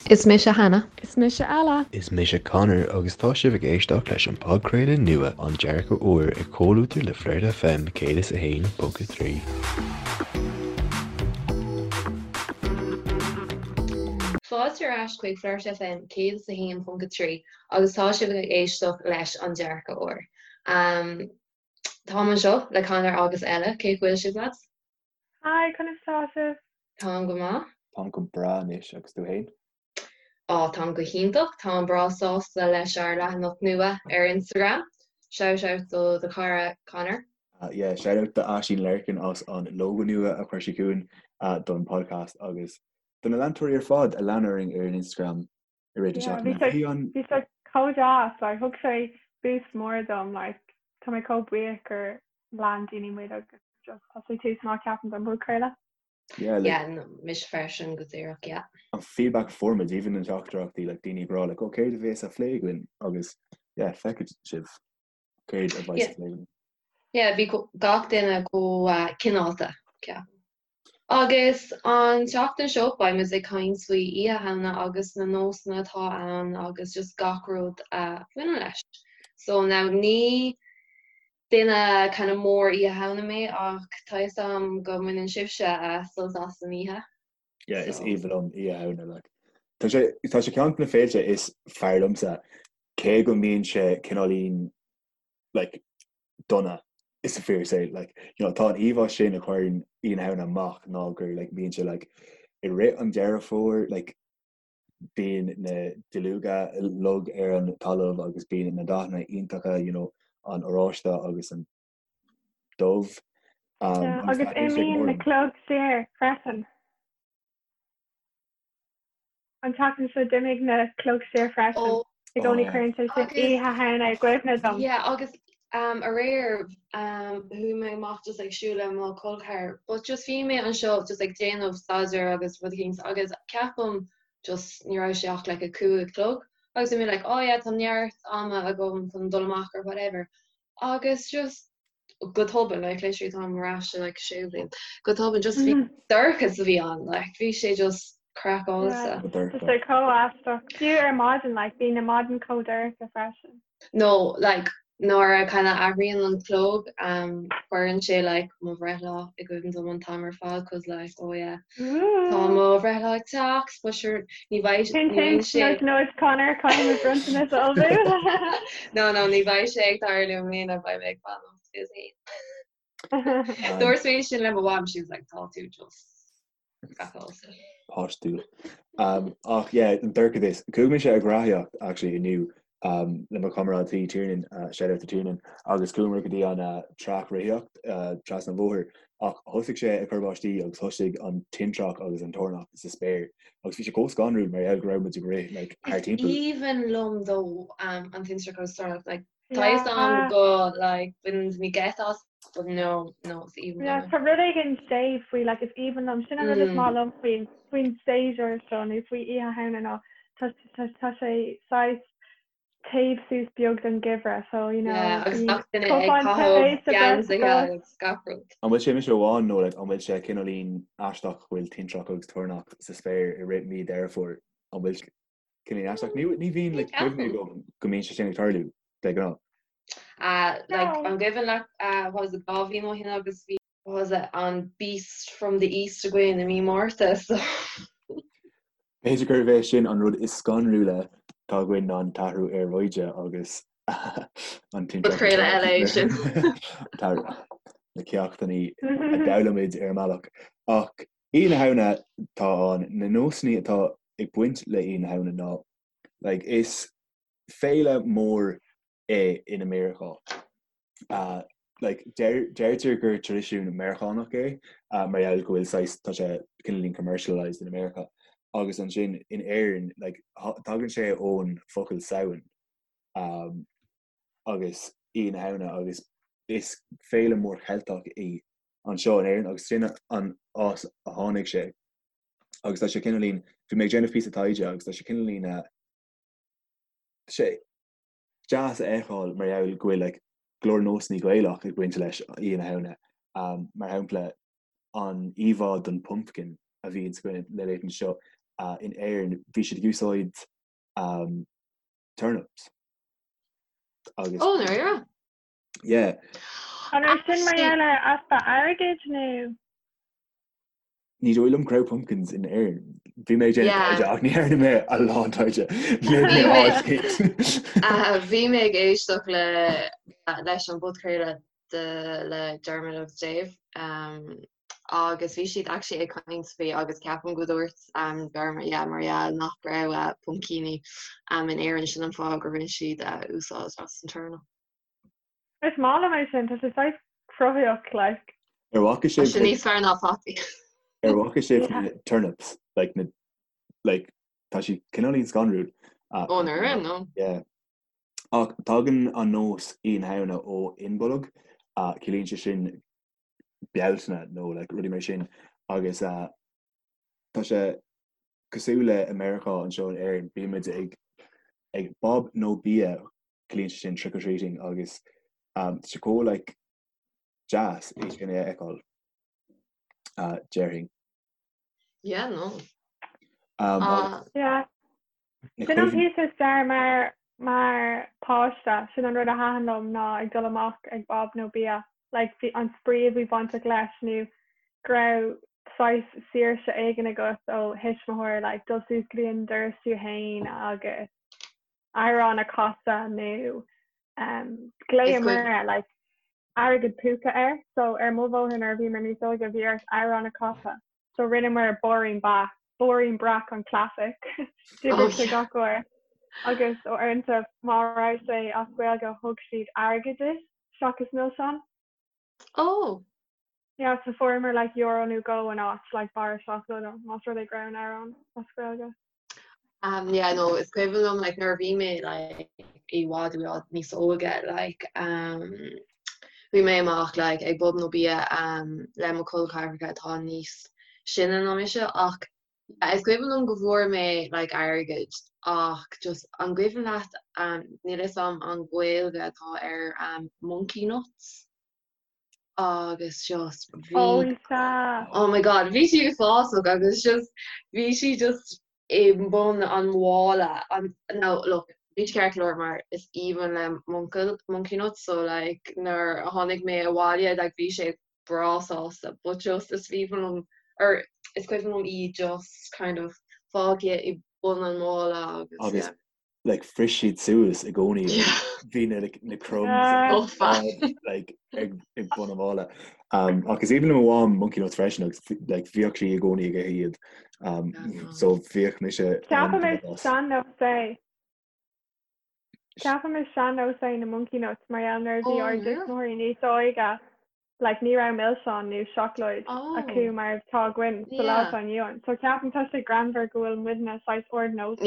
Is mise Hannah. Is mise Ella. Is mise Conor agus tá sibh ag éisteacht leis an podchraoladh nua An Dearcadh Úr i gcomhluadar le Flirt FM 101.3. Fáilte ar ais chuig Flirt FM 101.3 agus tá sibh ag éisteacht leis An Dearcadh Úr. Táim anseo le Conor agus Ella, cén chaoi a bhfuil sibh lads? Hi, conas tá sibh? Táim go maith. Táim go breá anois, agus tú fhéin? Á, táim go hiontach. Táim breá sásta leis ár leathanach nua ar Instagram. Shout out do do chara Conor. Yeah, shout out do Aisín Larkin as an logo nua a chuir sí chugainn don podcast agus do na leantóirí ar fad a lean orainn ar an Instagram i rith na seachtaine. Bhí sé chomh deas, like, thug sé boost mór dom, like, tá mé chomh buíoch gur lean daoine muid agus just tá sé tús maith ceapaim don bpodchraoladh. Yeah, like, Yeah, no, mise freisin go díreach, yeah. An feedback a fuair muid, even na teachtaireachtaí, like, daoine ag rá, like, oh, céard a bheas á phlé againn? Agus, yeah, feicfidh sibh céard a bheas á phlé againn. Yeah, bhí gach duine chomh uh, cineálta, ceapaim. Agus an tseachtain seo beidh muid ag caint faoi Oíche Shamhna agus na nósanna atá ann agus just gach rud a bhaineann leis. So now ní duine kind of mór Oíche Shamhna mé ach tá fhios a'm go mbaineann sibhse sult as an oíche. Yeah, is aoibhinn liom Oíche Shamhna like. Tá sé tá sé ceann de na féilte is fearr liomsa cé go mbíonn sé cineáilín like dona is a fíor say like you know tá an íomhá sin a chuireann Oíche na Shamhna amach ná gur like bíonn sé like i rith an Deireadh Fómhair like bíonn na duilleoga uilig ar an talamh agus bíonn na dathanna iontacha you know an oráiste agus an dubh um, yeah, agus imíonn na cloig siar freisin. An tseachtain seo d'imigh na cloig siar freisin. I gcónaí cuireann sé sin Oíche Shamhna i gcuimhne dom. Yeah, agus um, aréir um, chuaigh mé amach just ag siúl le mo chol ceathar, but just bhí mé anseo just ag déanamh staidéir agus rud éicint agus ceapaim just ní raibh sé ach like a 5 a chlog agus bhí mé like oh yeah tá neart ama agam chun dul amach or whatever agus just go tobann like literally táim ar ais like sé bhliain go tobann just bhí dorchas a bhí ann like bhí sé just craiceáilte. Tá sé chomh aisteach. Fiú ar maidin like bíonn na maidin chomh dorcha freisin. No like nuair a kind of athraíonn an clog um, cuireann sé like mo bhreithlá i gcuimhne dom an t-am ar fad cause like oh yeah tá mo bhreithlá ag teacht but sure ní bheidh ní bheidh sé Nudge nudge Conor caithfidh mé bronntanas a ullmhú. No no ní bheidh sé ag tarlú i mbliana beidh mé ag fanacht is é. Dúirt mé sin le mo mham she was like tá tú just craiceáilte. Páistiúil. Um, ach yeah, an dorchadas. Chuaigh mise ag reathaíocht actually inniu um, le mo chomrádaí Tiernan, uh, shout out to Tiernan, agus chuamar go dtí an uh, traic reathaíocht uh, trasna an bhóthair ach thosaigh sé ag cur báistí agus thosaigh an tintreach agus an toirneach sa spéir agus bhí sé chomh scanrúil mar gheall go raibh muid ag rith like, thar Is timpeall. aoibhinn liom though um, an tintreach agus toirneach like Tá fhios a'm go like baineann daoine geit as but no no is aoibhinn Yeah, liom é. tá rud éigin séimh faoi like is aoibhinn liom sin an rud is maith liom faoin faoin séasúr seo nó faoi Oíche Shamhna ná tá tá tá sé saghas téamh suas beag don gheimhreadh so you know Yeah, agus bíonn gach duine ag cupán tae caitheamh sa geansaithe bhreis agus gach rud. An bhfuil sé mise amháin nó like, an bhfuil sé cineáilín aisteach go bhfuil tintreach agus toirneach sa spéir i rith mí Deireadh Fómhair? An bhfuil cineáilín aisteach? Ní ní bhíonn like, cuimhne agam go mbíonn sé sin ag tarlú de ghnáth. Uh, like, an gcuimhin leat uh, what was it, 2 bhliain ó shin agus bhí was it an Beast from the East againn i mí Márta so. B'fhéidir gurbh é sin an rud is scanrúla atá againn ná an t-athrú aeráide agus an tintreach. Podchraoladh eile é sin. Na ceachtanna a d'fhoghlaim muid ar an mbealach. Ach Oíche na Shamhna tá ann, na nósanna atá ag baint le Oíche na Shamhna ná like is féile mór é in America. Like deirtear gur traidisiún Meiriceánach é mar gheall go bhfuil saghas tá sé cineáilín commercialised in America agus ansin in Éirinn like tagann sé ón focal Samhain um, agus Oíche na Shamhna agus is féile mór Cheilteach í anseo in Éirinn agus sin an áit a tháinig sé agus tá sé cineáilín bhí mé ag déanamh píosa taighde agus tá sé cineáilín uh, sé deas a fheiceáil mar gheall go bhfuil like go leor nósanna Gaelach ag baint leis Oíche na Shamhna. Um, mar shampla an íomhá den pumpkin a bhíonn againn le laethanta seo. in Éirinn bhí siad ag úsáid turnips agus Ó, ndáiríre? Yeah. An raibh sin mar gheall ar easpa airgid nó? Ní dóigh liom go raibh pumpkins in Éirinn. Bhí mé ag déanamh taighde ach ní dhearna mé a lán taighde. Léigh mé áit éigin. Bhí mé ag éisteacht le leis an bpodchraoladh de le Dermot agus Dave agus bhí siad actually ag caint faoi agus ceapaim go dúirt Dermot yeah mar gheall nach raibh puimcíní in Éirinn sin an fáth gur bhain siad úsáid as an turnip. Is maith liom é sin, tá sé saghas cruthaitheach like. Ar bhfaca sibh Tá sé níos fearr ná fataí. Ar bhfaca sibh na turnips like na like tá siad cineáilín scanrúil. Ó ndáiríre no. Yeah. Ach tagann an nós Oíche na Shamhna ó Imbolc, ciallaíonn sé sin Bealtaine nó like rudaí mar sin agus tá sé cosúil le i Meiriceá anseo in Éirinn bímid ag ag bob nó bia ciallaíonn sé sin trick or treating agus tá sé chomh like deas é sin a fheiceáil déarfainn. Yeah, no. Um, uh, yeah. Sin an píosa is fearr mar mar páiste, sin an rud a thaitin liom ná ag dul amach ag bob nó bia. Like bhí an spraoi a bhí bainteach leis nó go raibh saghas saoirse éigin agat ó thuismitheoir like dul suas go dtí an doras tú fhéin agus amhrán a chasadh nó um, ghlaomar like airgead púca air so ar mo bhóthar nuair a bhíomar níos óige bhí ort amhrán a chasadh so rinneamar Báirín Ba Báirín Breac an classic d'oibrigh sé gach uair agus uaireanta má raibh sé as Gaeilge thug siad airgead duit seachas milseáin. Oh! Yeah, so fuaireamar like euro nó dhó in áit like barra seacláide más rud é go raibh an amhrán as Gaeilge. Um, yeah, no, is cuimhin liom like nuair a bhí mé like i bhfad i bhfad níos óige like um, bhí mé amach like ag bob nó bia um, le mo chol ceathracha atá níos sine ná mise ach yeah, is cuimhin liom go bhfuair mé like airgead ach just an gcuimhin leat um, níl fhios a'm an Ghaeilge atá ar um, monkey nuts? agus just bhí Oh sea. Oh my god bhí sí uafásach agus just bhí sí just i mbun an mhála an now look bhí sé ceart go leor mar is aoibhinn le m'uncail monkey nuts so like nuair a tháinig mé abhaile like bhí sé breá sásta but just is aoibhinn liom or is cuimhin liom í just kind of fágtha i bun an mhála agus Agus yeah. like phris siad suas i gcónaí bhí na like, na crumbs like, ag, ag bun an mhála. Um, ach is aoibhinn le mo mham monkey nuts freisin agus like, bhíodh sí i gcónaí ag ithe iad. Um, so bhíodh mise Ceapaim is sean-nós é. Ceapaim is sean-nós é na monkey nuts mar gheall nuair a bhí ár dtuismitheoirí níos óige like ní raibh milseáin nó seacláid acu mar atá againn sa lá atá inniu ann. So ceapaim tá sé greannmhar go bhfuil muidne saghas ardnósach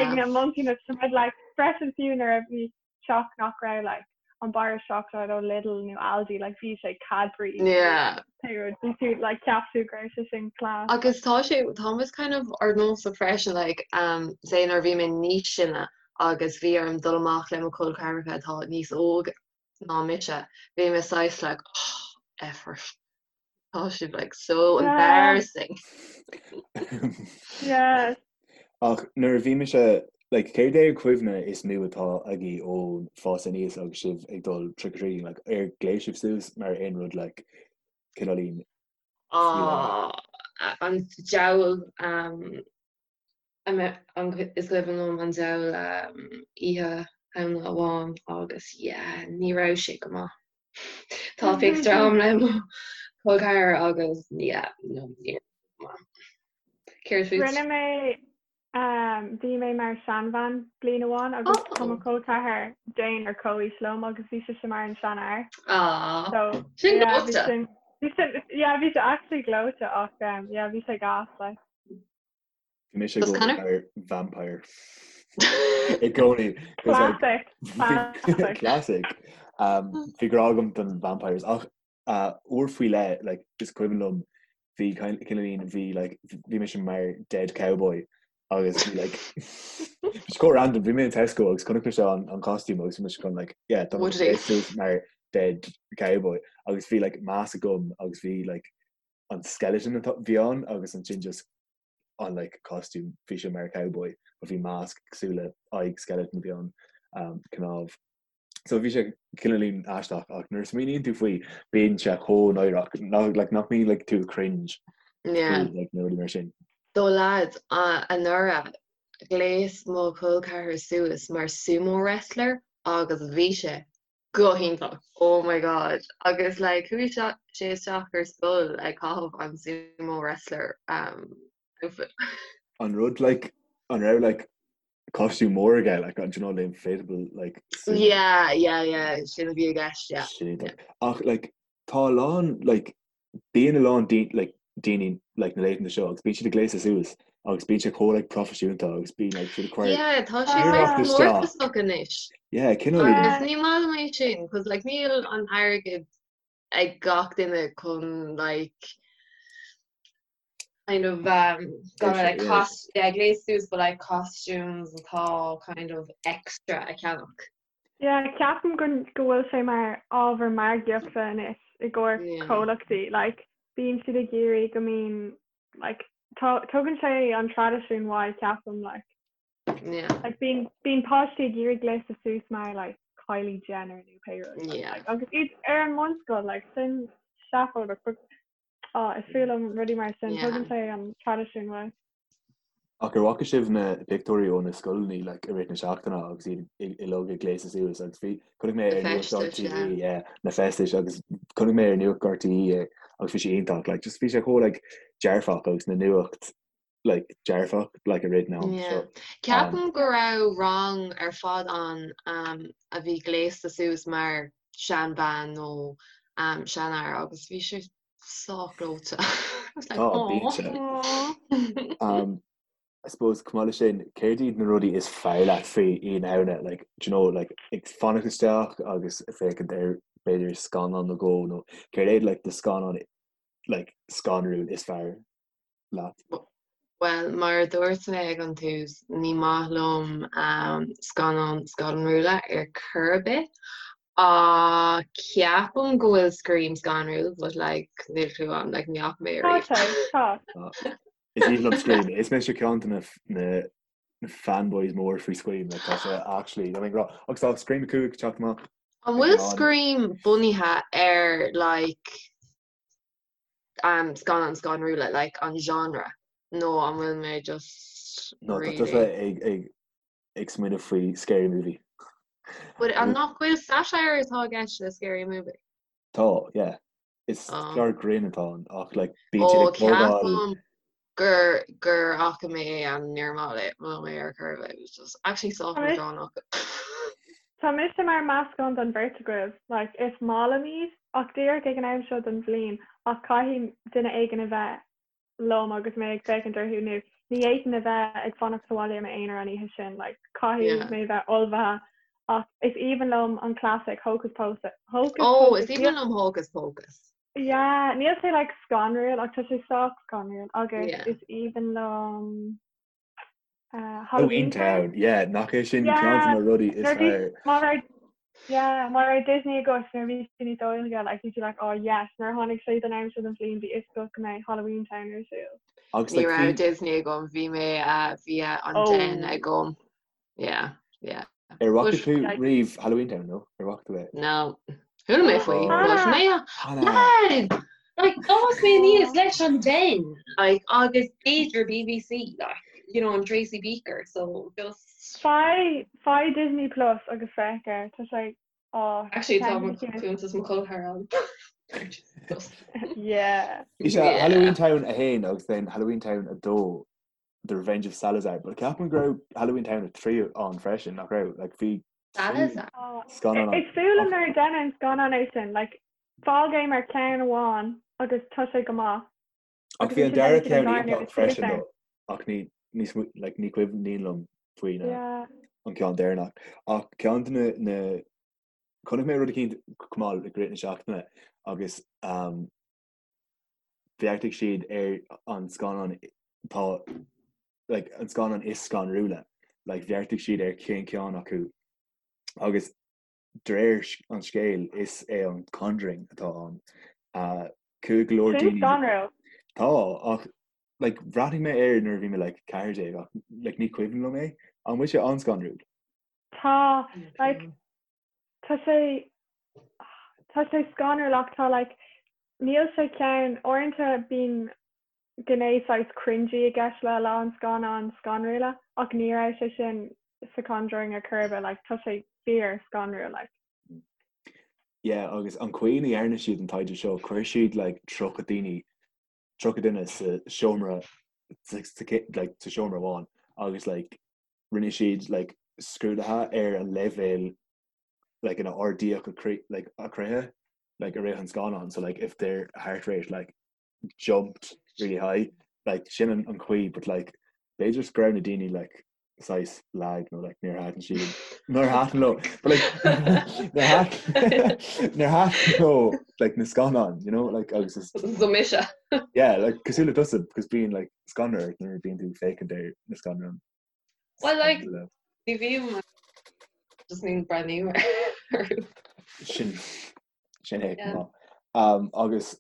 ag na monkey nuts tá muid like freisin fiú nuair a bhí teach nach raibh like an barra seacláid ó Lidl nó Aldi like bhí sé Cadbury pé rud bhí tú like cheap tú go raibh sé sin class. Agus tá sé tá muid kind of ardnósach freisin like um say nuair a bhí mé níos sine agus bhí orm dul amach le mo chol ceathracha atá níos óg ná mise. Bhí mé saghas like oh effort. Tá sibh like so embarrassing. Yes. Ach nuair a bhí mise like céard é an cuimhne is mó atá agaibh ón fás aníos agus sibh ag dul trick or treating like ar ghléas sibh suas mar aon rud like cineáilín Ah, an diabhal um, Is cuimhin liom an diabhal oíche Shamhna amháin agus yeah, ní raibh sé go maith. Tá pictiúr agam le mo chol ceathar agus yeah, no, ní raibh sé go maith. Céard fút? Rinne mé, bhí mé mar seanbhean bliain amháin agus tá mo chol ceathar Jane ar comhaois liom agus bhí sise mar an seanfhear. Aww, So, sin yeah, bhí gleoite. sin, bhí sin, yeah, bhí sé actually gleoite ach yeah, bhí sé gas, like. Bhí mise i gcónaí mar vampire. I gcónaí. Classic. Classic. Um, bhí grá agam don vampires ach uh, uair faoi leith like, is cuimhin liom bhí cineáilín bhí like, bhí mise mar dead cowboy agus bhí like It's quite random bhí mé in Tesco agus chonaic mise an, an costume agus bhí mise chun like yeah tá mé mar dead cowboy agus bhí like mask agam agus bhí like an skeleton atá bhí ann agus ansin just. an like costume bhí sé mar cowboy but bhí masc cosúil le aghaidh skeleton a bhí ann um, cnámh. So bhí sé cineáilín aisteach ach nuair a smaoiníonn tú faoi bíonn sé chomh náireach nach like, nach mbíonn like, tú cringe Yeah. faoi, like, na rudaí mar sin. So lads, anuraidh, ghléas mo chol ceathar suas mar sumo wrestler agus bhí sé go hiontach. Oh my god. Agus like chuaigh sé isteach ar scoil ag caitheamh an sumo wrestler um, outfit. An rud like an raibh like costume mór aige like an do you know the inflatable like sumo Yeah, yeah, yeah, sin a bhí i gceist, yeah. Sin iontach. Ach like tá a lán like bíonn a lán like daoine like na laethanta seo agus bíonn siad ag gléasadh suas agus bíonn sé chomh like proifisiúnta agus bíonn like siad ag cur Yeah, tá sé saghas comórtasach anois. Yeah, cineál Agus ní maith liom é sin, cos like níl an airgead ag gach duine chun like kind of um gonna like cost yeah, gléas suas but like costumes atá kind of extra a cheannach. Yeah, ceapaim go go bhfuil sé mar ábhar margaíochta anois i gcomhair comhlachtaí. Like, bíonn siad ag iarraidh go mbíonn like, tugann sé an traidisiún uaidh, ceapaim, like. Yeah. Like, bíonn, bíonn páistí ag iarraidh gléasadh suas mar like, Kylie Jenner nó pé rud. Yeah. Like, agus iad ar an mbunscoil, like, sin seafóideach, but oh, is fuath liom rudaí mar sin, tugann sé an traidisiún uaidh. Ach ar bhfaca sibh na pictiúirí ó na scoileanna like, i rith na seachtaine agus iad uilig ag gléasadh suas agus bhí chonaic mé ar Na Nuacht feistis, yeah. RTÉ yeah, na feistis agus chonaic mé ar Nuacht RTÉ é agus bhí sé iontach like, just bhí sé chomh like, dearfach agus na nuacht like, dearfach like, i rith na am Yeah. so um, Ceapaim go raibh rang ar fad ann um, a bhí gléasta suas mar seanbhean nó um, seanfhear agus bhí sé sách gleoite. I was like, Tá, bíonn sé. "Aw." Um, I suppose, chomh maith leis sin, céard iad na rudaí is fearr leat faoi Oíche na Shamhna? Like, do you know, like, ag fanacht isteach agus ag féachaint ar b'fhéidir scannán nó dhó nó céard é like, do scannán like, scanrúil is fearr leat? Bhuel, mar a dúirt mé ag an tús, ní maith liom scannáin scanrúla ar chor ar bith. Ach ceapaim go bhfuil Scream scanrúil, but like, níl clue agam, like, ní fhaca mé Tá ariamh. sé, tá. Is aoibhinn liom Scream. Is mise ceann de na na fanboys mór faoi Scream, like, tá sé actually, I mean, rá, agus tá Scream 5 ag teacht amach. An bhfuil Scream bunaithe ar like um, scannáin scanrúla, like an genre, nó an bhfuil mé just No, tá really... tusa ag, ag, ag smaoineamh faoi Scary Movie. But an nach bhfuil satire atá i gceist le Scary Movie? Tá, yeah. Is Oh. clár grinn atá ann ach like bíonn siad Ó, ag tógáil ceapaim gur gur fhaca mé é and níor mhaith liom é ar chor ar bith. It was just actually sách Tá mise leadránach. Tá mise mar meascán den bheirt agaibh. Like, is maith liom iad, ach díreach ag an am seo den bhliain, ach caithfidh duine éigin a bheith liom agus mé ag féachaint orthu nó ní fhéadfainn a bheith ag fanacht sa bhaile i m'aonar an oíche sin, like, caithfidh Yeah. mé bheith ullmhaithe ach is aoibhinn liom an classic Hocus Pocus, Hocus Oh, Pocus is aoibhinn liom Hocus Pocus. Yeah, níl sé like scanrúil ach tá sé sách scanrúil agus Yeah. is aoibhinn liom uh, Halloween Halloween Town. Town, yeah, nach é sin ceann de Yeah, na rudaí is nuair bhí fearr. má raibh yeah, má raibh Disney agat nuair bhí tú níos óige, like bhí tú like, oh yes, nuair a tháinig sé don am seo den bhliain bhí fhios agat go mbeidh Halloween Town ar siúl. Agus Ní like raibh bhí Disney agam, bhí mé uh, bhí uh, an Den Oh. agam. Yeah, yeah. ar bhfaca But tú Like, riamh Halloween Town, no? Ar bhfaca tú é? no. Chuala mé faoi, Oh, but Hannah! mé Hannah! Lad! Like, d'fhás mé aníos Oh. leis an Den, like, agus b'fhéidir BBC, like, you know, and Tracy Beaker, so just... Faigh, faigh Disney Plus agus féach air, tá sé, oh, Actually, tá ceann mo de na cinn. cuntas mo chol ceathar ann. Just, Yeah. Bhí sé yeah. Halloween Town 1 agus then Halloween Town 2 The Revenge of Salazar, but ceapaim go raibh Halloween Town 3 ann freisin, nach raibh? Like, bhí Salazar? Oh, scannán ann. Is fuath liom nuair a deineadh an scannán é sin, like, fág é mar ceann amháin agus tá sé go maith. Ach Agus bhí an ansin dara deineann siad an ceann dara iontach nuair is freisin ann. though, ach ní ní smaoi- like, ní cuimhníonn liom faoi na Yeah. an ceann deireanach. Ach ceann de na na chonaic mé rud eicínt chomh maith i rith na seachtaine agus um, bheartaigh siad ar an scannán tá like, an scannán is scanrúla like, bheartaigh siad ar cén ceann acu agus de réir an scéil is é an Conjuring atá ann. Uh, chuaigh go leor Sin daoine scanrúil. Tá ach. Like bhreathnaigh mé air nuair a bhí mé like 14 ach like ní cuimhin liom é. An bhfuil sé an-scanrúil? Tá, like, tá sé, tá sé scanrúil ach tá like, níl sé ceann, uaireanta bíonn gné saghas cringy i gceist le a lán scannán scanrúla ach ní raibh sé sin sa Conjuring ar chor ar bith, like, tá sé fíor scanrúil, like. Yeah, agus an chaoi ina dhearna siad an taighde seo, chuir siad like 30 daoine 30 duine sa seomra like sa seomra amháin agus like rinne siad like scrúduithe ar an leibhéal like ina ardaíodh a croí like a croíthe like i rith an scannán so like if their heart rate like jumped really high like sin an an chaoi but like b'fhéidir go raibh na daoine like saghas lag nó like níor thaitin siad níor thaitin leo but like níor thaitin níor thaitin leo like na scannáin you know like agus is So mise. yeah like cosúil le tusa because bíonn like scanradh ort nuair a bíonn tú ag féachaint ar na scannáin Well like ní bhím just ní breathnaím orthu. Sin sin é Yeah. um, agus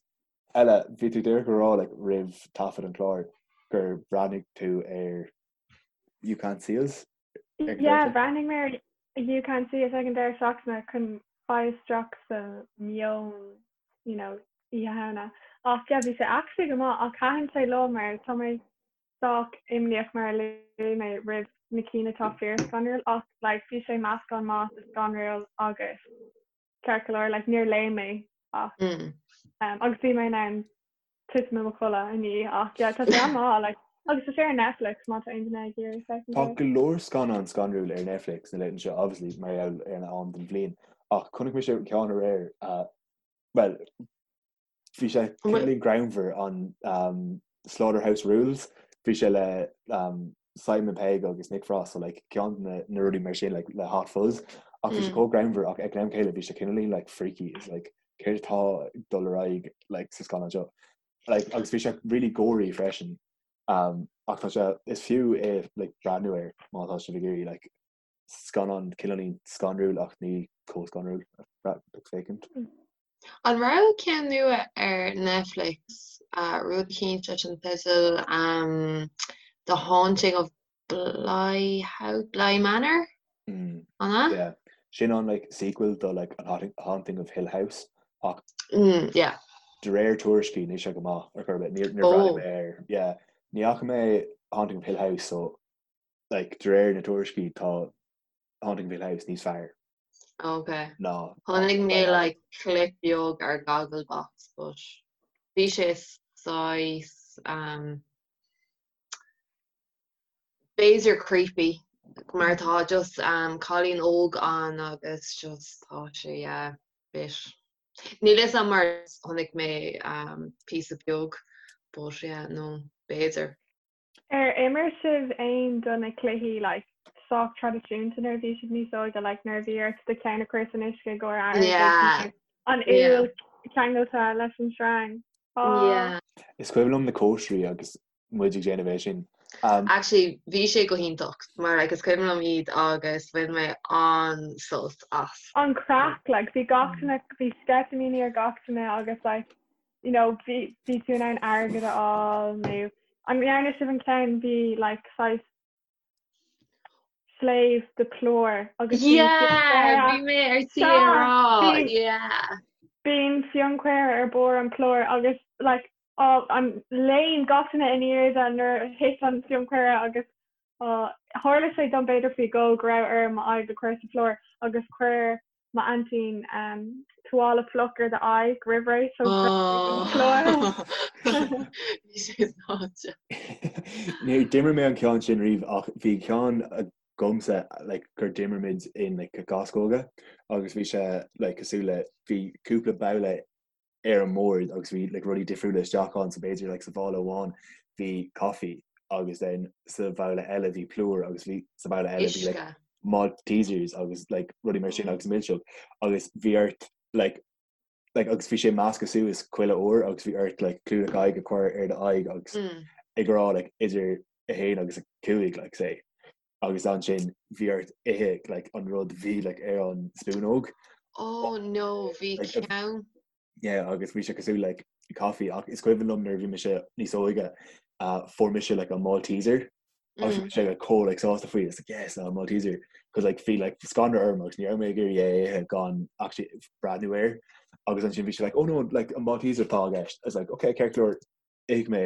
Ella bhí tú díreach ag rá like roimh taifead an chláir gur bhreathnaigh tú ar You Can't See Us? Yeah, bhreathnaigh mé ar You Can't See Us ag an deireadh seachtaine chun fáil isteach sa meon, you know, Oíche Shamhna. Ach yeah, bhí sé actually go maith ach thaitin sé liom mar tá mé sách imníoch mar a luaigh mé roimh na cinn atá fíor-scanrúil ach like bhí sé meascán maith de scanrúil agus ceart go leor, like níor léim mé ach um, agus bhí mé in ann titim i mo chodladh i ndiaidh ach yeah, tá sé an-mhaith like agus tá sé ar Netflix má tá aon duine ag iarraidh féachaint Tá air. go leor scannán scanrúil ar Netflix na laethanta seo obviously mar gheall ar an am den bhliain ach chonaic mise ceann aréir uh, well Bhí sé cineáilín greannmhar an um, Slaughterhouse Rulez. Bhí sé le um, Simon Pegg agus Nick Frost so like, ceann na, na rudaí mar sin like, le Hot Fuzz ach bhí sé mm. chomh greannmhar ach ag an am céanna bhí sé cineáilín like, freaky is like, céard atá ag dul ar aghaidh like, sa scannán seo. Like, agus bhí sé really gory freisin. Um, ach tá sé is fiú é like, breathnú air má tá sibh ag iarraidh like, scannán cineáilín scanrúil ach ní chomh scanrúil ag féachaint. An raibh ceann nua ar Netflix, rud eicínt leis an teideal The Haunting of Bly House, Bly Manor? An ea? Yeah. Sin an like sequel do like an Haunting of Hill House ach yeah. de réir tuairiscí níl sé go maith ar chor ar bith. Níor bhreathnaigh mé air. Yeah. Ní fhaca mé Haunting of Hill House so like de réir na tuairiscí tá Haunting of Hill House níos fearr. Ok. Ná. Chonaic mé like clip beag ar Gogglebox but bhí sé saghas um, b'fhéidir creepy mar tá just um, cailín óg ann agus just tá sé yeah, bit. Níl fhios a'm mar chonaic mé um, píosa beag but yeah, no, b'fhéidir. Ar imir sibh aon do na cluichí like sách traidisiúnta nuair a bhí sibh níos óige like nuair a bhí ort do cheann a chur san uisce i gcomhair airgid Yeah. nó an Yeah. úll ceangailte leis an sreang? Oh. Yeah. Is cuimhin liom na cóisirí agus muid ag déanamh é sin. Um, Actually bhí sé go hiontach mar like is cuimhin liom iad agus bhain mé an-sult as. An craic like bhí gach duine bhí sceitimíní ar gach duine agus like you know, bhí bhí tú in ann airgead a fháil nó an ndearna sibh an ceann bhí like saghas sléibh de plúr agus bhí Yeah, bhí mé ar tí a rá, yeah. Bíonn fionchaora ar barr an plúr agus like á an léim gach duine in airde nuair a thit an fionchaora agus á tharla sé dom b'fhéidir faoi dhó go raibh orm m'aghaidh a chur sa phlúr agus chuir M'aintín tuáille fliuch ar d'aghaidh roimh ré so plúr. Bhí sé sáite. Níor d'imir mé an ceann sin riamh ach bhí ceann agamsa like gur d'imir muid in like gascóga agus bhí sé like cosúil le bhí cúpla babhla ar an mbord agus bhí like rudaí difriúla isteach ann so b'fhéidir like sa mhála amháin bhí coffee agus then sa bhabhla eile bhí plúr agus bhí sa bhabhla eile bhí like Maltesers agus like rudaí mar sin agus milseog agus bhí ort like like agus bhí sé measctha suas chuile uair agus bhí ort like clúdach aghaidh a chur ar do aghaidh agus mm. ag rá like idir a haon agus a cúig like say agus ansin bhí ort ithe like an rud bhí like ar an spúnóg. Oh no, bhí ceann. Yeah, agus bhí sé cosúil like coffee ach is cuimhin liom nuair a bhí mise níos óige. Fuair mise like an Malteser agus bhí mise like chomh like sásta faoi it's like yes an Malteser cos like bhí like scanradh orm agus ní raibh mé ag iarraidh é a ithe gan actually breathnú air agus ansin bhí sé like oh no like an Malteser atá i gceist I was like okay ceart go leor ith mé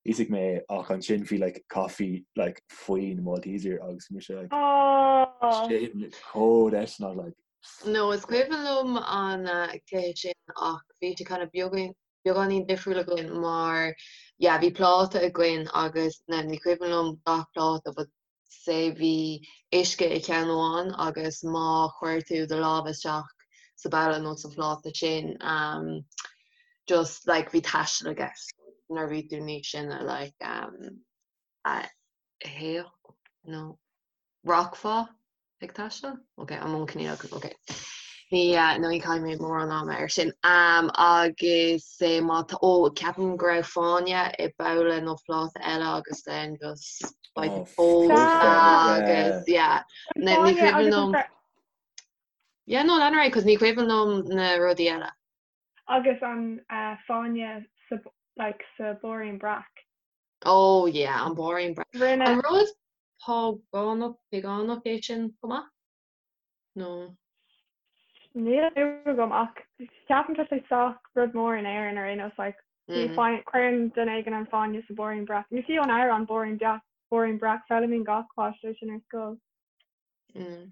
íosfaidh mé ach ansin bhí like coffee like faoin Malteser agus bhí mise like oh sin chomh deiseanach like No, is cuimhin liom an cluiche sin ach bhí sé kind of beagán beagáinín difriúil againn mar yeah bhí pláta againn agus now ní cuimhin liom gach pláta but say bhí uisce i cheann amháin agus má chuir tú do lámh isteach sa babhla nó sa phláta sin um just like bhí taisteal i gceist nuair a bhí tú níos sine like um a théadh nó rachfá ag taisteal? Ok, an mbun coinníollacha, ok. Ní, no ní chaithfidh mé mórán ama air sin. Um, agus eh, má tá, ó, ceapaim go raibh fáinne i babhla nó pláta eile agus then just like Oh, fós yeah. agus yeah. Ní ní Fáinne cuimhin agus liom. an Yeah, no, lean ar aghaidh, 'cause ní cuimhin liom na rudaí eile. Agus an eh, fáinne sa, like, sa blúirín breac. Oh yeah, an blúirín breac. Rinne. An rud págánach, pagánach é sin chomh maith? Nó? Níl a fhios agam ach ceapaim tá sé sách rud mór in Éirinn ar aon nós like bhí Mm. fáin- cuireann duine éigin an fáinne sa blúirín breac. Nó fiú an amhrán blúirín breac, blúirín breac, foghlaimíonn gach páiste é sin ar scoil. Mm.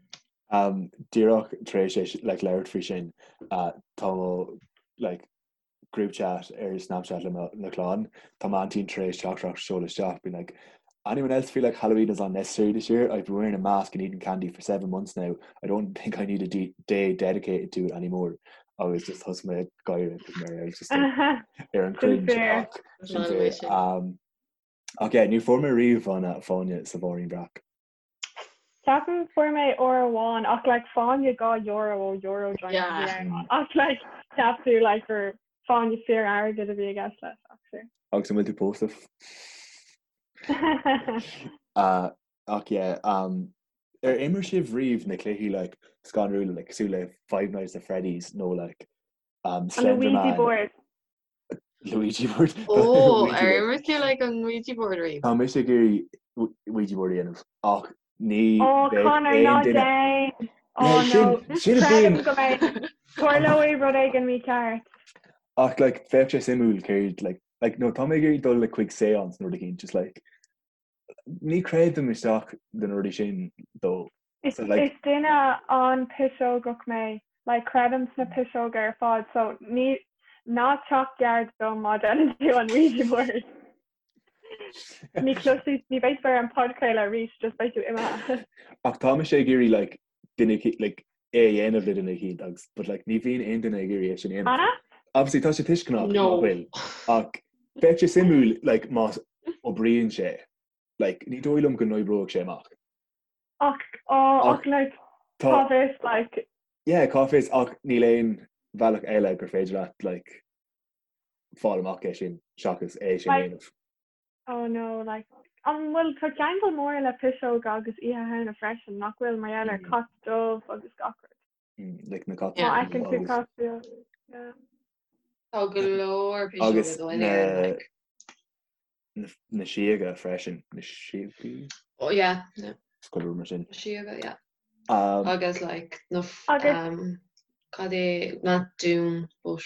Um, díreach tar éis é like, labhairt faoi sin, uh, tá mo like, group chat ar Snapchat le mo chlann, tá m'aintín tar éis teachtaireacht a sheoladh isteach being like, Anyone else feel like Halloween is unnecessary this year? I've been wearing a mask and eating candy for 7 months now. I don't think I need a day dedicated to it anymore. Agus just thosaigh mé ag gáire because mar I was just like, ar an cringe ach sin fair. Um, ach yeah, ní fuair mé riamh an fáinne sa bharrín breac. Ceapaim fuair mé uair amháin ach like fáinne 2 euro ó Euro Giant a bhí ann ach like cheap tú like gur fáinne fíor airgid a bhí i gceist leis ach sure. Agus an bhfuil tú pósta? Uh, ach yeah, um, ar imir sibh riamh na cluichí like scanrúla like cosúil le Five Nights at Freddy's nó like um, An Slender Ouija Man? board. Luigi board. Ó, ar imir tú like an Ouija board riamh? Tá mise ag iarraidh Ouija board a dhéanamh ach ní Ó bheadh Conor aon ná duine déan! Ó Yeah, no, sin sin a creidim bhíonn go mbeidh tarlóidh rud éigin mícheart. ach like bheadh sé suimiúil céard like like no tá mé ag iarraidh dul like chuig séance nó rud éicint just like ní chreidim isteach do na rudaí sin though. Is So like is duine an-piseogach mé, like creidim sna piseoga ar fad so ní ná teacht gar dom má déanann tú an Ouija board. Ní chloisfidh, ní bheidh tú ar an podchraoladh arís, just beidh tú imithe. Ach tá mise ag iarraidh like duine like é a dhéanamh le duine eicínt agus but like ní bhíonn aon duine ag iarraidh é sin a dhéanamh. Anna? Obviously tá sé tuisceanach No. nach bhfuil ach bheadh sé suimiúil like más oibríonn sé like ní dóigh liom go n-oibreoidh sé amach. Ach oh Ach ach like tá cá bhfios like yeah cá bhfios ach níl aon bhealach eile gur féidir leat like fáil amach é sin seachas é sin a like dhéanamh. oh no like an bhfuil tá ceangal mór le piseoga agus Oíche Shamhna freisin nach bhfuil mar gheall ar Mm. cat dubh agus gach rud. Mm, like na cait Má Yeah. fheiceann dubha tú agus cat dubh yeah. Tá go leor piseoga agus dó in na Éirinn like. na síoga freisin, na síogaí? Oh yeah, yeah. Is cuid mar sin. Síoga, yeah. Um, Agus like na Agus um, cad é not dún but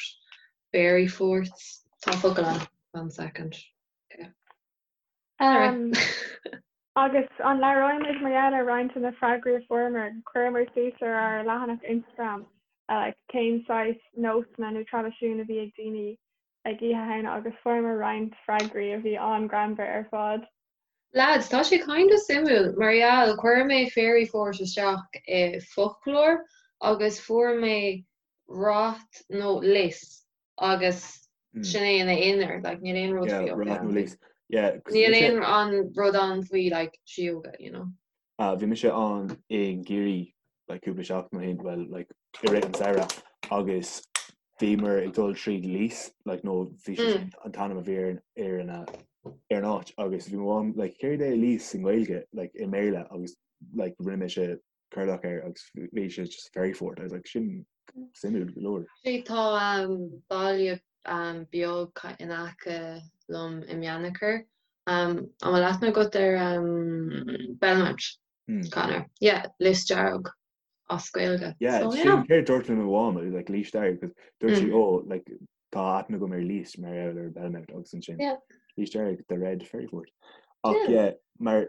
fairy forts tá focal ann one second. Okay. Um, agus an labhróimid mar gheall ar roinnt de na freagraí a fuaireamar, chuireamar suas ar ár leathanach Instagram uh, like, cén saghas nósanna nó traidisiún a bhí ag daoine ag Oíche Shamhna agus fuaireamar roinnt freagraí a bhí an-ghreannmhar ar fad. Lads, tá sé kind of suimiúil mar gheall chuir mé fairy fort isteach i foclóir agus fuair mé rath nó lios agus sin é ina aonar, like níl aon rud Yeah, faoi rath nó lios. Yeah, 'cause Níl mise- aon an rud ann faoi like síoga, you know. Ah, bhí mise ann i gCiarraí like cúpla seachtain ó shin, well like i rith an samhradh agus bhíomar ag dul tríd Lios like nó bhí sé sin an t-ainm a bhí ar an ar an ar an áit agus bhí mo mham like céard é Lios i nGaeilge like i mBéarla agus like rinne mise cuardach air agus bhí sé just fairy fort. I was like sin suimiúil go leor. Actually tá um, baile um, beag in aice liom i mBeannchar. An bhfuil aithne agat ar Belmont, Conor? Yeah, Lios Dearg as Gaeilge. Yeah, so, yeah. Sin céard dúirt le mo mham, like Lios Dearg, because dúirt sí, oh, like, tá aithne agam ar Lios mar gheall ar Belmont agus ansin. Yeah. Lios Dearg, the Red Fairy Fort. Ach yeah, yeah mar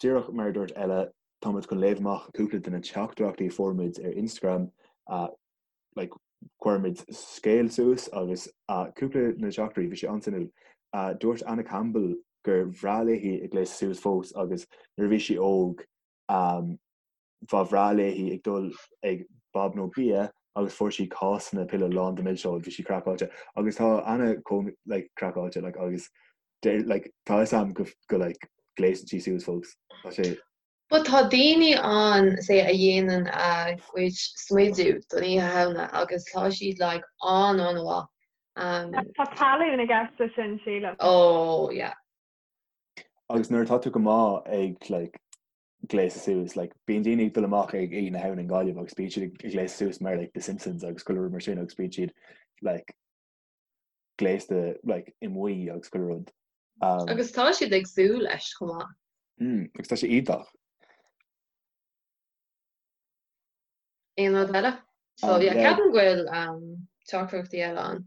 díreach mar dúirt Ella, tá muid chun léamh amach cúpla de na teachtaireachtaí a fuair muid ar Instagram uh, like, chuir muid scéal suas agus uh, cúpla na teachtaireachtaí bhí sé an-suimiúil. Uh, dúirt Anna Campbell gur bhreá léi ag gléasadh suas fós agus nuair a bhí sí óg um, ba bhreá léi ag dul ag Bob nó Bia agus fuair sí cásanna pile lán de milseoig, bhí sí craiceáilte agus tá Anna chomh like, craiceáilte like, agus deir, like, tá fhios a'm go, go like, gléasann sí suas fós. Tá sé But tá daoine ann say a dhéanann a gcuid smidiú don Oíche Shamhna agus tá siad like an-an-mhaith. Um, Tá tallann i gceist leis sin, sílim. Oh, yeah. Agus nuair atá tú go maith ag like, gléasadh suas, like, bíonn daoine ag dul amach ag Oíche na Shamhna i nGaillimh agus bíonn siad ag gléasadh suas mar like, The Simpsons agus chuile rud mar sin agus bíonn siad like, gléasta like, i mbuí agus chuile rud. Um, agus tá siad ag súil leis chomh maith. Mm, agus tá sé iontach. Aon rud eile? So um, yeah, ceapaim go bhfuil um, teachtaireachtaí eile ann.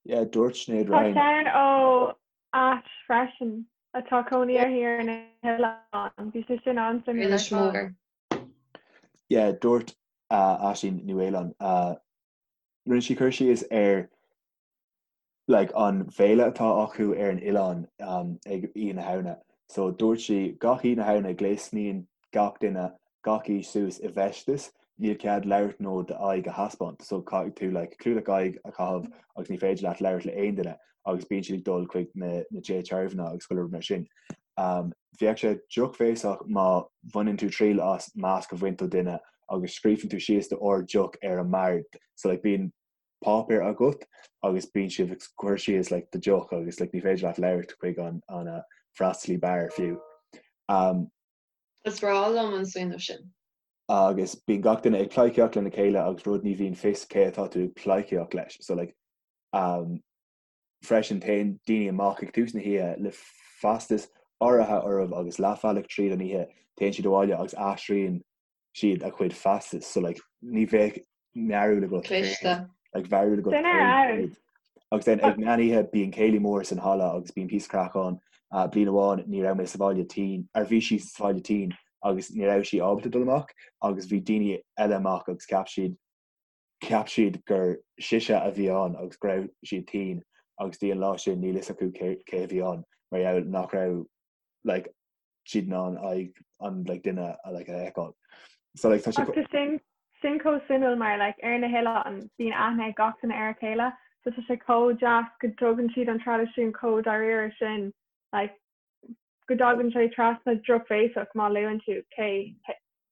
Yeah, dúirt Sinéad Ryan. Tá ceann ó Ash freisin atá cónaí uirthi ar na hoileáin. Bhí sé sin an-suimiúil ar fad. Yeah, dúirt uh, Aisín Ní Mhaoláin, uh, rinne sí cur síos ar like, an bhféile atá acu ar an oileán um, ag Oíche na Shamhna. So dúirt sí gach Oíche na Shamhna gléasann gach duine gach aois suas i bhfeisteas, níl cead labhairt nó d'aghaidh a thaispeáint. So caithfidh tú like, clúdach aghaidh a chaitheamh agus ní féidir leat labhairt le aon duine agus bíonn siad ag dul chuig na, na tithe tarbhanna agus chuile rud mar sin. Um, bheadh sé drochbhéasach má bhaineann tú triail as masc a bhaint ó duine agus scríobhann tú síos d'ord deoch ar an mbord. So like, bíonn páipéar agat agus bíonn sibh ag cur síos like, do deoch agus like, ní féidir leat labhairt chuig an, an uh, freastalaí beáir fiú. Um, Is breá liom an smaoineamh sin. Agus bíonn gach duine ag pleidhcíocht lena chéile agus rud ní bhíonn fios cé atá tú ag pleidhcíocht leis. So like, um, freisin téann daoine amach ag tús na hoíche le feistis áirithe orthu agus leathbhealach tríd an oíche téann siad abhaile agus aistríonn siad a chuid feistis. So like, ní bheadh meabhrú agat Cliste. like, meabhrú agat Sin ar fheabhas. Agus then ag meán oíche bíonn céilí mór san halla agus bíonn píosa craic ann. Uh, bliain amháin ní raibh mé sa bhaile tinn, ar bhí sí sa bhaile tinn agus ní raibh sí ábalta dul amach agus bhí daoine eile amach agus cheap siad cheap siad gur sise a bhí ann agus go raibh siad tinn agus dtí an lá sin níl fhios acu cé cé a bhí ann mar gheall nach raibh like siad in ann aghaidh an like duine a like a fheiceáil. So like tá sé Ach tá sin sin chomh suimiúil mar like ar na hoileáin bíonn aithne ag gach duine ar a chéile so tá sé chomh deas go dtugann siad an traidisiún chomh dáiríre sin like go dtagann sé trasna drochbhéasach má luann tú cé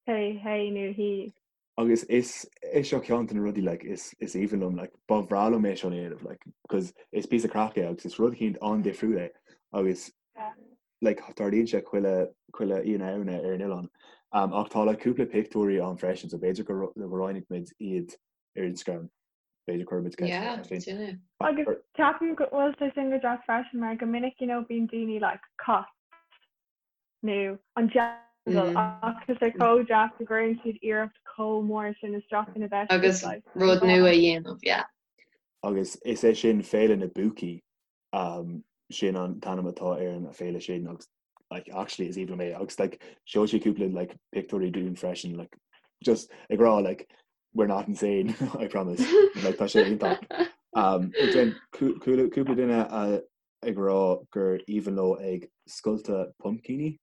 cé hé nó hí. Agus is é seo ceann de na rudaí like is is aoibhinn liom like ba bhreá liom é seo a dhéanamh like because is píosa craic é agus is rud eicínt an-difriúil é agus like tarlaíonn sé chuile chuile Oíche na Shamhna ar an oileán. Um, ach tá like cúpla pictiúirí ann freisin so b'fhéidir go go roinnfidh muid iad ar Instagram. B'fhéidir cuirfidh muid ceist Yeah, sin é. Agus ceapaim go bhfuil sé sin go deas freisin mar go minic you know bíonn daoine like cat nó an diabhal ach tá sé chomh deas go gcuireann siad iarracht chomh mór sin isteach ina bhfeisteas Agus like rud nua a dhéanamh, yeah. Agus is é sin Féile na bPúcaí, um, sin an t-ainm atá ar an féile sin agus like, actually is aoibhinn liom é agus like, sheol sí cúpla like, pictiúirí dúinn freisin like, just ag rá like, we're not insane, I promise. like, tá sé iontach. Um, cúpla duine a ag rá gur aoibhinn leo ag scoilteadh pumpcíní,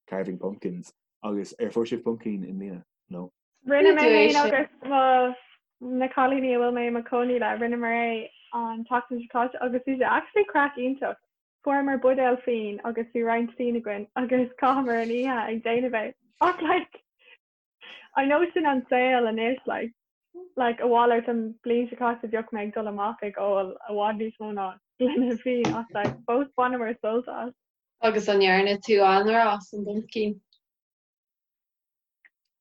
carving pumpkins, agus ar fuair sibh pumpkin i mbliana? No? Rinne mé féin agus mo na cailíní a bhfuil mé i mo chónaí le, rinneamar é an tseachtain seo caite agus bhí sé actually craic iontach. Fuaireamar buidéal fíon agus bhí roinnt fíon againn agus chaitheamar an oíche ag déanamh é. Ach like, I know sin an saol anois like, like a mhalairt an bliain seo caite bheadh mé ag dul amach ag ól i bhfad níos mó ná gloine fíon ach like fós bhaineamar sult as. Agus an ndearna tú anraith as an bpumpkin?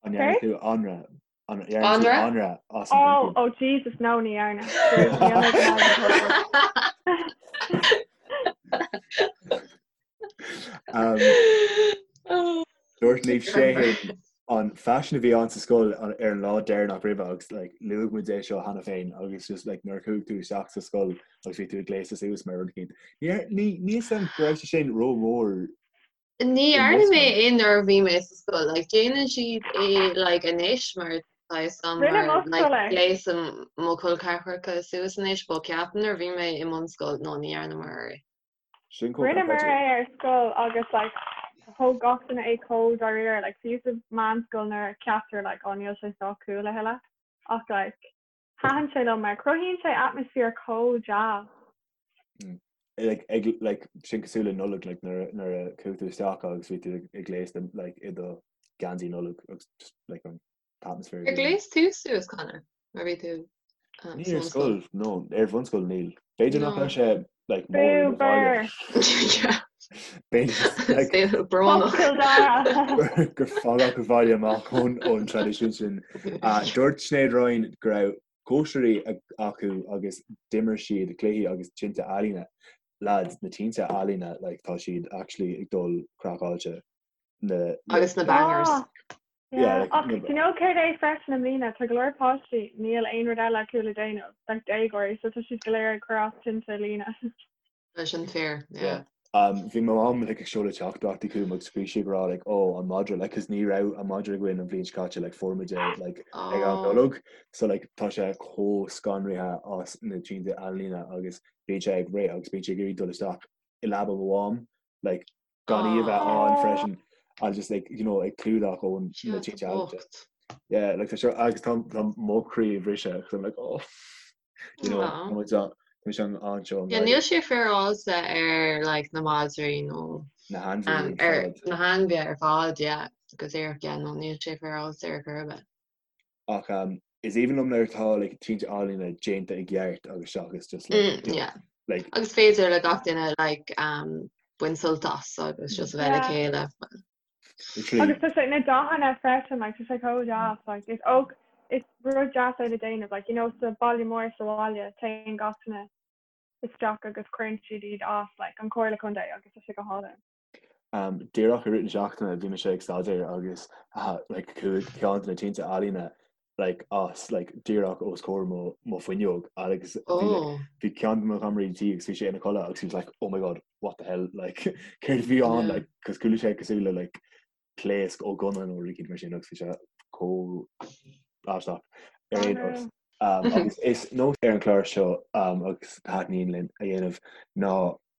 An ndearna tú anraith? An ndearna tú anraith as an Oh, oh Jesus, no ní dhearna. Níl mé go maith ag an. Um, Dúirt Niamh Sheahan an faisean a bhí ann sa scoil ar an lá deireanach roimhe agus like, luaigh muid é seo cheana féin agus just like, nuair a chuaigh tú isteach sa scoil agus bhí tú ag gléasadh suas mar rud éicint. Ní ní ní fhios agam go raibh sé sin rómhór Ní dhearna mé é nuair a bhí mé sa scoil, like déanann siad é like anois mar tá fhios agam Rinne mar mo like scoil é. gléasann mo chol ceathracha suas anois but ceapaim nuair a bhí mé i mbunscoil no ní dhearnamar é. Sin chomh Rinneamar craiceáilte. é ar scoil agus like thóg gach duine é chomh dáiríre like fiú sa mheánscoil nuair a ceaptar like oh níl sé sách cool a thuilleadh ach like Thaitin sé liom mar cruthaíonn sé atmaisféar chomh deas. Like, ag, like, sin cosúil le Nollaig, like, nuair, a- nuair a chuaigh tú isteach agus bhí tú ag, ag gléasadh, like, i do gheansaí Nollag agus just, like, an t-atmaisféar a Ar bhí ann. ghléas tú suas, Conor, nuair a bhí tú um, Ní sa ar bhunscoil? scoil, no, ar bhunscoil níl. B'fhéidir nach No. raibh sé, like, mór i Bú mo bhaile. bur! Yeah. B'fhéidir, like, Saol Fuck brónach. Cill Dara! gur fágadh an bhaile amach ón, ón traidisiún sin. Uh, dúirt Sinéad Ryan go raibh cóisirí acu agus d'imir siad cluichí agus tinte ealaíne. Lads, na tinte ealaíne, like, tá siad actually ag dul craiceáilte. Na, na, Agus na bangers. Ah, yeah, yeah. like, Ach na, do you know céard é freisin i mbliana, tá go leor páistí, níl aon rud eile acu le déanamh, like déagóirí, so tá siad go léir ag cur as tinte ealaíne. Tá sin fíor, Yeah. yeah. Um, bhí mo mham like, ag seoladh teachtaireachtaí chugam agus bhí sí ag rá like, oh, an madra, like, 'cause ní raibh an madra againn an bhliain seo caite, like, fuair muid é like, ag am Oh, Nollag, so like, tá sé chomh scanraithe as na tinte ealaíne agus bíonn sé ag rith agus bíonn sé ag iarraidh dul isteach i leaba mo mham, like, gan í a bheith ann Oh, freisin and just like, you know, ag clúdach ón na Sea, tinte ealaíne. bocht. Yeah, like, tá sé agus tá tá mo chroí ag briseadh 'cause I'm like, oh. You know, Aw. tá muid an- tá muid an anseo Yeah, níl sé féaráilte ar like na madraí nó na hainmhithe um, ar ar fad. na hainmhithe ar fad, yeah, go díreach, yeah, no, níl sé féaráilte ar chor ar bith. Ach um, is aoibhinn liom nuair atá like, tinte ealaíne déanta i gceart agus seachas just like, Mm, you know, yeah. like, Agus féidir le gach duine like um, baint sult as agus just a bheith le Yeah. chéile. literally Agus tá sé na dathanna freisin, like, tá sé chomh deas, like, is ok, is rud deas é le déanamh, like, you know, sa baile mór sa bhaile, téann gach duine isteach agus cuireann siad iad as, like, an Comhairle Contae agus tá sé go hálainn. Um, díreach i rith na seachtaine bhí mise ag staidéar agus uh, like, chuaigh ceann de na tinte ealaíne like, as like, díreach os comhair mo, mo fuinneog agus bhí like, Oh, bhí ceann de mo chamaraí tí agus bhí sé ina chodladh agus he was like, oh my god, what the hell, like, céard a bhí ann, yeah. like, cos chuala sé cosúil le like, pléasc ó gunna nó rud éicint mar sin agus bhí sé chomh aisteach ar Oh aon nós. no. Um, agus is nós ar an chlár seo um, agus taitníonn linn a dhéanamh ná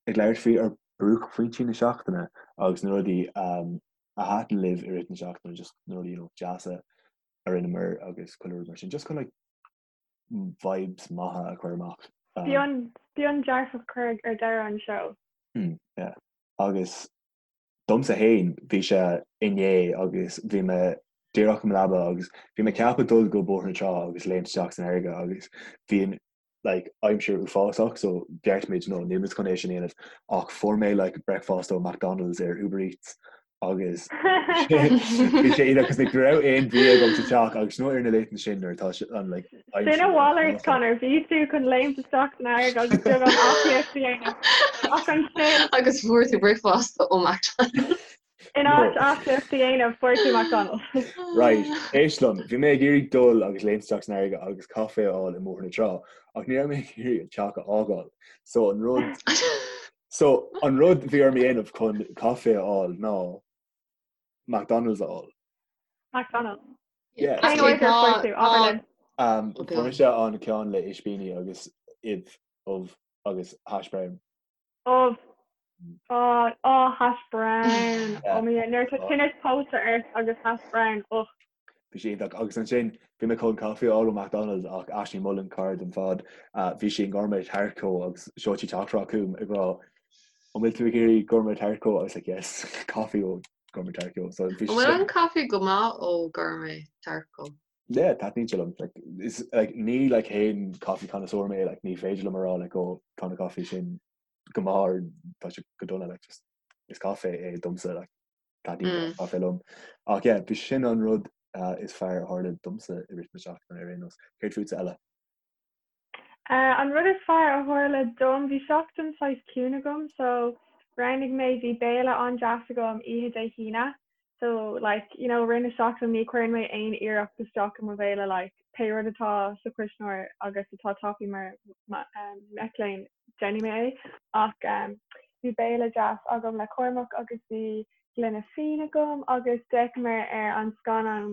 ag labhairt faoi ár buaicphointí na seachtaine agus na rudaí um, a thaitin libh i rith na seachtaine, just na rudaí you know, deasa a rinneamar agus chuile rud mar sin. Just chun like, vibes maithe a chur amach. Um, Bíonn, bíonn dearfach cur ar deireadh an seó. mm, yeah. Agus domsa féin bhí sé inné agus bhí mé díreach i mo leaba agus bhí mé ceaptha dul go Bóthar na Trá agus léimt isteach san fharraige agus bhí an like aimsir uafásach so bheartaigh muid no níl muid chun é sin a dhéanamh ach fuair mé like breakfast ó McDonald's ar Uber Eats agus bhí sé iontach cos like ní raibh aon bhia agam sa teach agus you know ar na laethanta sin nuair atá sé an like Sin aimsir a mhalairt uafásach. Conor, bhí tú chun léimt isteach san fharraige agus beagán aclaíocht a dhéanamh ach ansin Agus fuair tú bricfeasta ó McDonald's. In No. áit aclaíocht a dhéanamh fuair tú McDonald's. Right, éist liom, bhí mé ag iarraidh dul agus léimt isteach san fharraige agus caife a fháil i mBóthar na Trá, ach ní raibh mé ag iarraidh an teach a fhágáil. So an rud so an rud bhí orm a dhéanamh chun caife a fháil ná McDonald's a fháil. McDonald's. Yeah. Cén Actually, order tá fuair tú? Abair tá linn. Um, Okay. fuair mise an ceann le ispíní agus ubh, ubh agus hash brown. Ubh. Ó, ó, hash brown. Yeah. Ó mo Dhia, nuair atá tinneas póite ort agus hash brown, och. Bhí sé iontach. Agus ansin, bhí mé chun caife a fháil ó McDonald's ach Ashley Mullen, cara dom fad, bhí sí in Gourmet Tart Co agus sheol sí teachtaireacht chugam ag rá, An bhfuil tú ag iarraidh Gourmet Tart Co? I was like, yes, caife ó Gourmet Tart Co. So bhí An sé bhfuil sin. an caife go maith ó Gourmet Tart Co? Yeah, taitníonn sé liom. Like, is, like, ní like haon coffee connoisseur mé, like, ní féidir liom a rá like, oh, tá na caife sin go maith or tá sé go dona, like, just, is caife é domsa, like, taitníonn Mm. caife liom. Ach yeah, bhí sin an rud uh, is fearr a tharla domsa i rith na seachtaine ar aon nós. Céard fútsa Ella? Uh, an rud is fearr a tharla dom, bhí seachtain saghas ciúin agam, so. Roghnaigh mé, bhí béile an-deas agam oíche Dé hAoine so like you know rith na seachtaine ní chuireann mé aon iarracht isteach i mo bhéile like pé rud atá sa chuisneoir agus atá tapaidh mar mac léinn déanfaidh mé é ach um, bhí béile deas agam le Cormac agus bhí gloine fíon agam agus d'fhéachamar ar an scannán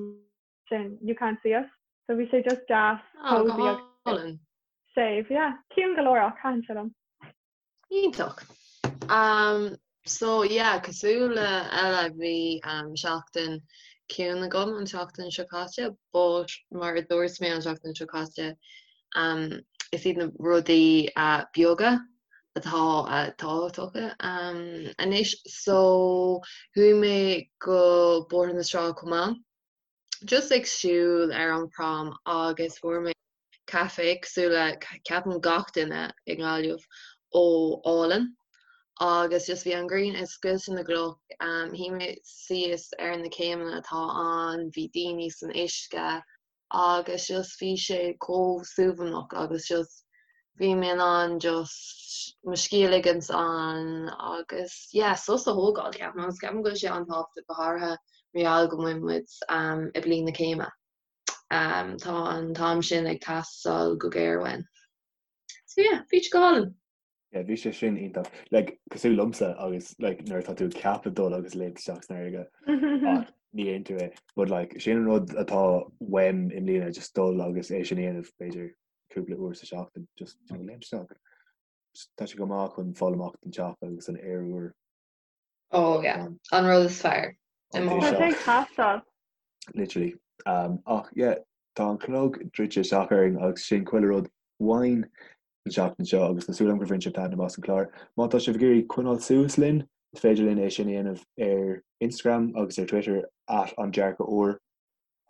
sin You Can't See Us so bhí sé just deas oh, go hálainn. Séimh, yeah. Ciúin go leor ach thaitin sé liom. Iontach. Um, so yeah, cosúil le Ella bhí um, seachtain ciúin agam an seachtain seo caite, but mar a dúirt mé an seachtain seo caite, um, is iad na rudaí uh, beaga atá uh, tábhachtacha um, anois. So chuaigh mé go Bóthar na Trá chomh maith. Just ag siúl ar an prom agus fuair mé caife cosúil le ceapaim gach duine i nGaillimh ó Álainn agus just bhí an ghrian ag scoilteadh na gcloch, shuigh mé síos ar na céimeanna atá ann, bhí daoine san uisce agus just bhí sé chomh suaimhneach agus just bhí mé in ann just mo scíth a ligint ann agus yeah sos a thógáil ceapaim agus ceapaim go bhfuil sé an-tábhachtach go háirithe mar gheall go bhfuil muid i bliain na céime. Tá an t-am sin ag teastáil go géar uainn. So yeah, bhí sé go hálainn. Yeah, bhí sé sin iontach. Like, cosúil liomsa agus like, nuair atá tú ag ceapadh dul agus léimt isteach san fharraige ach ní dhéantar é. But like, sin an rud atá uaim i mbliana, just dul agus é sin a dhéanamh b'fhéidir cúpla uair sa seachtain, just you know, léimt isteach. Tá sé go maith chun fáil amach den teach agus an aer úr. Oh yeah, an rud is fearr. Tá sé ag teastáil. Literally. Um, ach yeah, tá an clog druidte isteach orainn agus sin chuile rud uainn an seachtain seo agus tá súil agam gur bhain sibh taitneamh as an chlár. Má tá sibh ag iarraidh coinneáil suas linn, is féidir linn é sin a dhéanamh ar Instagram agus ar Twitter at an dearcadh úr.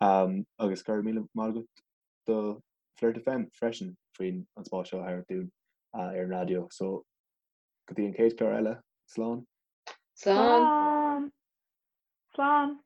Um, agus go raibh míle maith agat do Flirt FM freisin faoin an spás seo a thabhairt dúinn uh, ar an raidió. So go dtí an chéad chlár eile, slán. Slán. Slán.